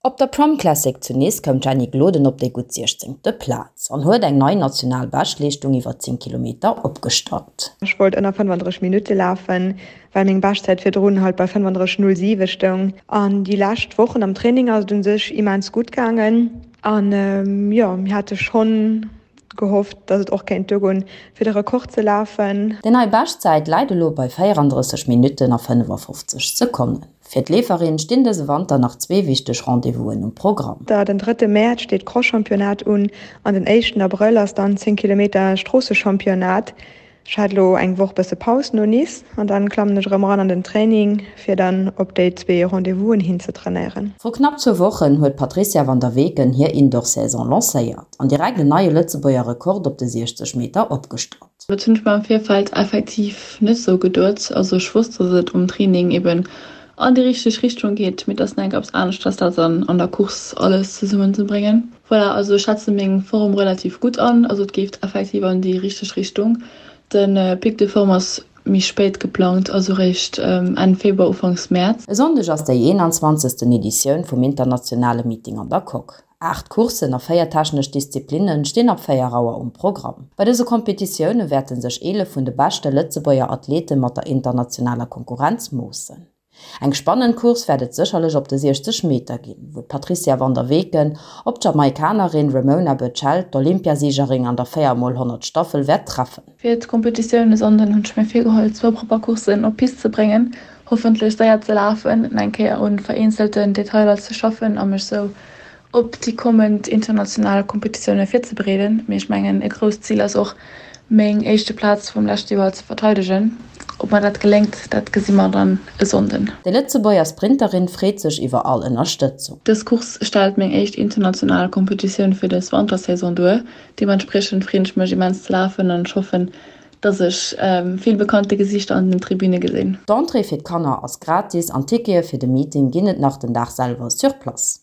Op der Prom Classic zu Nice koum d'Jenny Gloden op déi gutt 16. Plaz an huet eng nei national Beschtleeschtung iwwer 10 Kilometer opgestallt. Ech wollt ënner 35 Minutte lafen, well meng Beschtzäit virdrun halt bei 35,07 stoung. An déi lescht Wochen am Training ass et un sech immens gutt gaangen. An jo, mir hate schonn gehofft, dass et och kéint duergoen, fir de Rekord ze lafen. Déi nei Beschtzäit läit elo bei 34 Minutten a 55 Sekonnen. Fir d'Leeferin stinn dëse Wanter nach zwee wichteg Rendez-vousen um Programm. Den drëtte Mäerz steet d'Cross-Championnat un an den éischten Abrëll ass dann 10 Kilometer Stroossechampionnat. Ech hat elo eng Woch bësse Paus no Nice an dann klammen ech erëm eran an den Training fir dann op déi zwee Rendez-vousen hin ze trainéieren. Vru knapp zwou Wochen huet d'Patrizia van der Weken hir Indoor-Saison lancéiert an direkt en neie Lëtzebuerger Rekord op de 60 Meter opgestallt. Dat hunn ech mer am Virfeld effektiv net sou geduet. Also ech wosst, dass et um Training eben an déi richteg Richtung geet, mee et ass nach eng Kéier eppes aneschters dat dann an der Course alles zesummen ze bréngen. Voilà, also ech schätze meng Form relativ gutt an, also et geeft effektiv an déi richteg Richtung. De Pic de forme ass méi spéit geplangt, also réischt Enn Februar, Ufanks Mäerz. E Sonndeg ass déi 21. Editioun vum internationale Meeting an der Coque. 8 Courssen a 4 technesch Disziplinne stinn ab 4 Auer um Programm. Bei dëse Kompetitioune wäerte sech 11 vun de beschte Lëtzebuerger Athlete mat der internationaler Konkurrenz moossen. Eng spannend Course wäert et sécherlech op de 60 Meter ginn, wou d'Patrizia van der Weken op d'Jamaikanerin Remona Burchell, d'Olympiasiegerin an der 4 mol 100 Staffel, wäert treffen. Fir d'Kompetitioun e Sonnden hunn ech mir virgeholl zwou propper Courssen op d'Pist ze bréngen, hoffentlech séier ze lafen, eng Kéier un vereenzelten Detailer ze schaffen a mech sou op déi kommend international Kompetitioune virzebereeden. Mee ech mengen e grousst Zil ass och meng éischte Plaz vum leschte Joer ze verteidegen. Ob mer dat geléngt, dat gesi mer dann e Sonnden. Déi Lëtzebuerger Sprinterin freet sech iwwer all Ënnerstëtzung. Dës Course stellt meng éischt international Kompetitioun fir dës Wantersaison duer. Deementspriechend freen ech mech immens ze lafen an ech hoffen, dass ech vill bekannte Gesiichter an den Tribüne gesinn. D'Entrée fir d'Kanner ass gratis an Tickete fir de Meeting ginn et nach den Dag selwer sur place.